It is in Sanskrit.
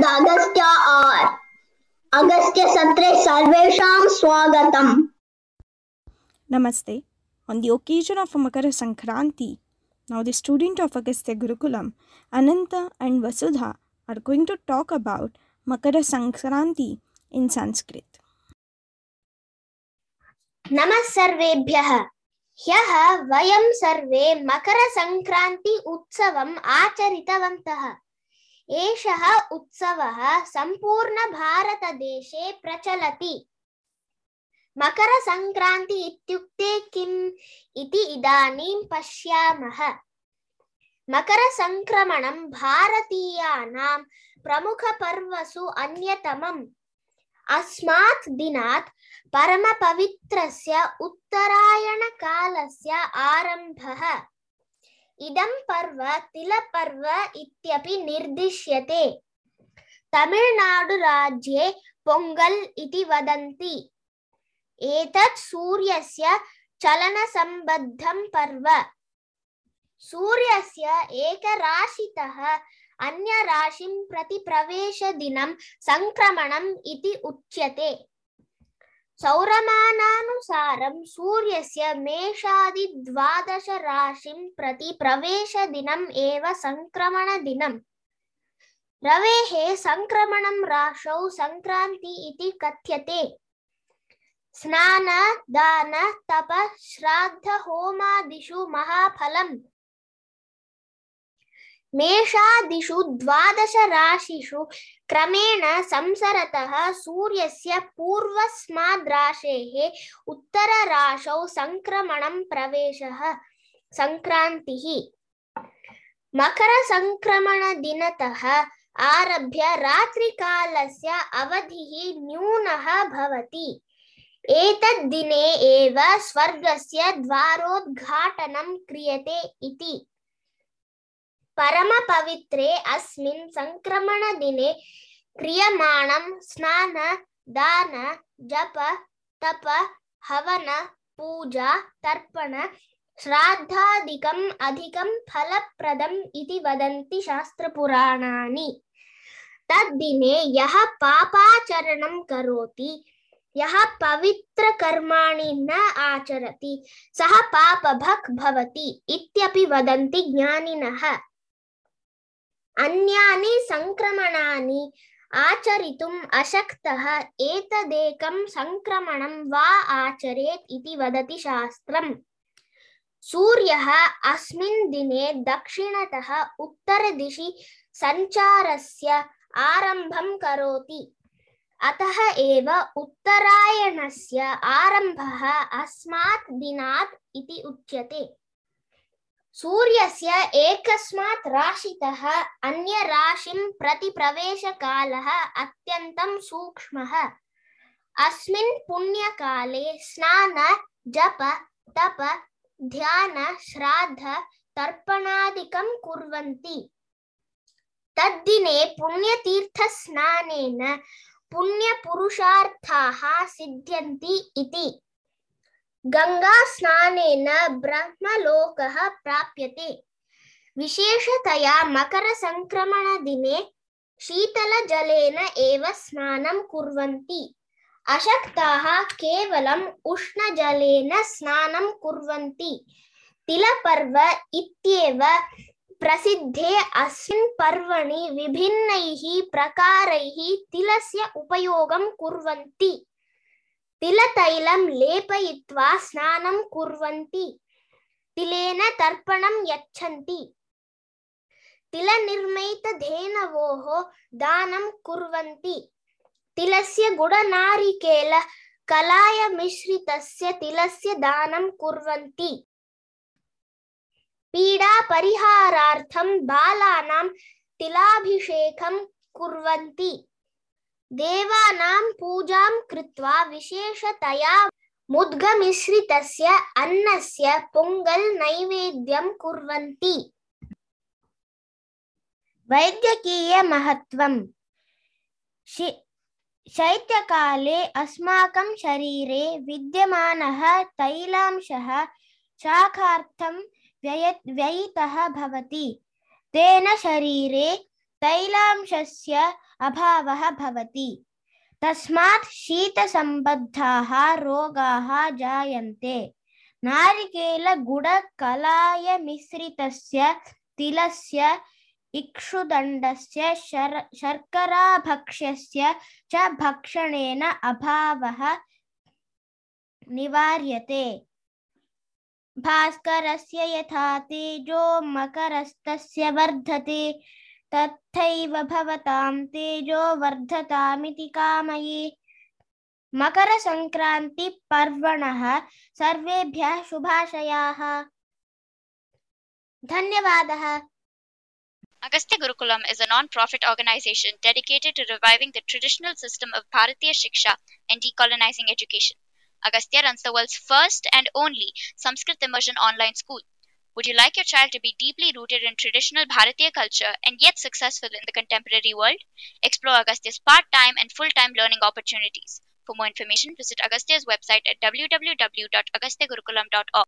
Agastya R. Agastya Satre Sarvesham Swagatam. Namaste. On the occasion of Makara Sankranti, now the student of Agastya Gurukulam, Ananta and Vasudha, are going to talk about Makara Sankranti in Sanskrit. नमः सर्वेभ्यः। ह्यः वयं सर्वे मकरसंक्रान्ति उत्सवम् आचरितवन्तः। एषः उत्सवः सम्पूर्णभारतदेशे प्रचलति। मकरसंक्रान्ति इत्युक्ते किम् इति इदानीं पश्यामः। मकरसंक्रमणं भारतीयानां प्रमुखपर्वसु अन्यतमम्। अस्मात् दिनात् परमपवित्रस्य उत्तरायणकालस्य आरम्भः। इदं पर्व तिलपर्व इत्यपि निर्दिश्यते। तमिळ्नाडुराज्ये पोङ्गल् इति वदन्ति। एतत् सूर्यस्य चलनसम्बद्धं पर्व। सूर्यस्य एकराशितः अन्यराशिं प्रति प्रवेशदिनं संक्रमणम् इति उच्यते। सौरमानानुसारं सूर्यस्य मेषादि 12 राशिं प्रति प्रवेशदिनम् एव संक्रमणदिनम्। रवेः संक्रमणं राशौ संक्रान्ति इति कथ्यते। स्नान दान तप श्राद्ध होमादिषु महाफलम्। मेषादिषु 12 राशिषु क्रमेण संसरतः सूर्यस्य पूर्वस्माद्राशेः उत्तरराशौ संक्रमणं प्रवेशः संक्रान्तिः। मकरसंक्रमणदिनतः आरभ्य रात्रिकालस्य अवधिः न्यूनः भवति। एतद्दिने एव स्वर्गस्य द्वारोद्घाटनं क्रियते इति। परमपवित्रे अस्मिन् संक्रमणदिने क्रियमाणं स्नान दान जप तप हवन पूजा तर्पण श्राद्धादिकम् अधिकं फलप्रदम् इति वदन्ति शास्त्रपुराणानि। तद्दिने यः पापाचरणं करोति, यः पवित्रकर्माणि न आचरति, सः पापभक् भवति इत्यपि वदन्ति ज्ञानिनः। अन्यानि संक्रमणानि आचरितुम् अशक्तः एतदेकं संक्रमणं वा आचरेत् इति वदति शास्त्रम्। सूर्यः अस्मिन् दिने दक्षिणतः उत्तरदिशि सञ्चारस्य आरम्भं करोति। अतः एव उत्तरायणस्य आरम्भः अस्मात् दिनात् इति उच्यते। सूर्यस्य एकस्मात् राशितः अन्यराशिं प्रति प्रवेशकालः अत्यन्तं सूक्ष्मः। अस्मिन् पुण्यकाले स्नान जप तप ध्यान श्राद्ध तर्पणादिकं कुर्वन्ति। तद्दिने पुण्यतीर्थस्नानेन पुण्यपुरुषार्थाः सिद्ध्यन्ति इति। गंगास्नानेन ब्रह्मलोकः प्राप्यते। विशेषतया मकरसंक्रमणदिने शीतलजलेन एव स्नानं कुर्वन्ति। अशक्ताः केवलम् उष्णजलेन स्नानं कुर्वन्ति। तिलपर्व इत्येव प्रसिद्धे अस्मिन् पर्वणि विभिन्नैः प्रकारैः तिलस्य उपयोगं कुर्वन्ति। तिलतैलं लेपयित्वा स्नानं कुर्वन्ति। तिलेन तर्पणं यच्छन्ति। तिलनिर्मितधेनवोः दानं कुर्वन्ति। तिलस्य गुडनारिकेल कलायमिश्रितस्य तिलस्य दानं कुर्वन्ति। पीडापरिहारार्थं बालानां तिलाभिषेकं कुर्वन्ति। देवानां पूजां कृत्वा विशेषतया मुद्गमिश्रितस्य अन्नस्य पोङ्गल् नैवेद्यं कुर्वन्ति। वैद्यकीयमहत्त्वम्। शैत्यकाले अस्माकं शरीरे विद्यमानः तैलांशः शाखार्थं व्ययितः भवति। तेन शरीरे तैलांशस्य अभावः भवति। तस्मात् शीतसम्बद्धाः रोगाः जायन्ते। नारिकेलगुडकलायमिश्रितस्य तिलस्य इक्षुदण्डस्य शर्कराभक्ष्यस्य च भक्षणेन अभावः निवार्यते। भास्करस्य यथा तेजो मकरस्तस्य वर्धते तथैव भवतां तेजो वर्धतामिति कामये। मकरसंक्रान्तिपर्वणः सर्वेभ्यः शुभाशयाः। धन्यवादः। Agastya Gurukulam is a non-profit organization dedicated to reviving the traditional system of Bharatiya Shiksha and decolonizing education. Agastya runs the world's first and only Sanskrit immersion online school. Would you like your child to be deeply rooted in traditional Bharatiya culture and yet successful in the contemporary world? Explore Agastya's part-time and full-time learning opportunities. For more information, visit Agastya's website at www.agastyagurukulam.org.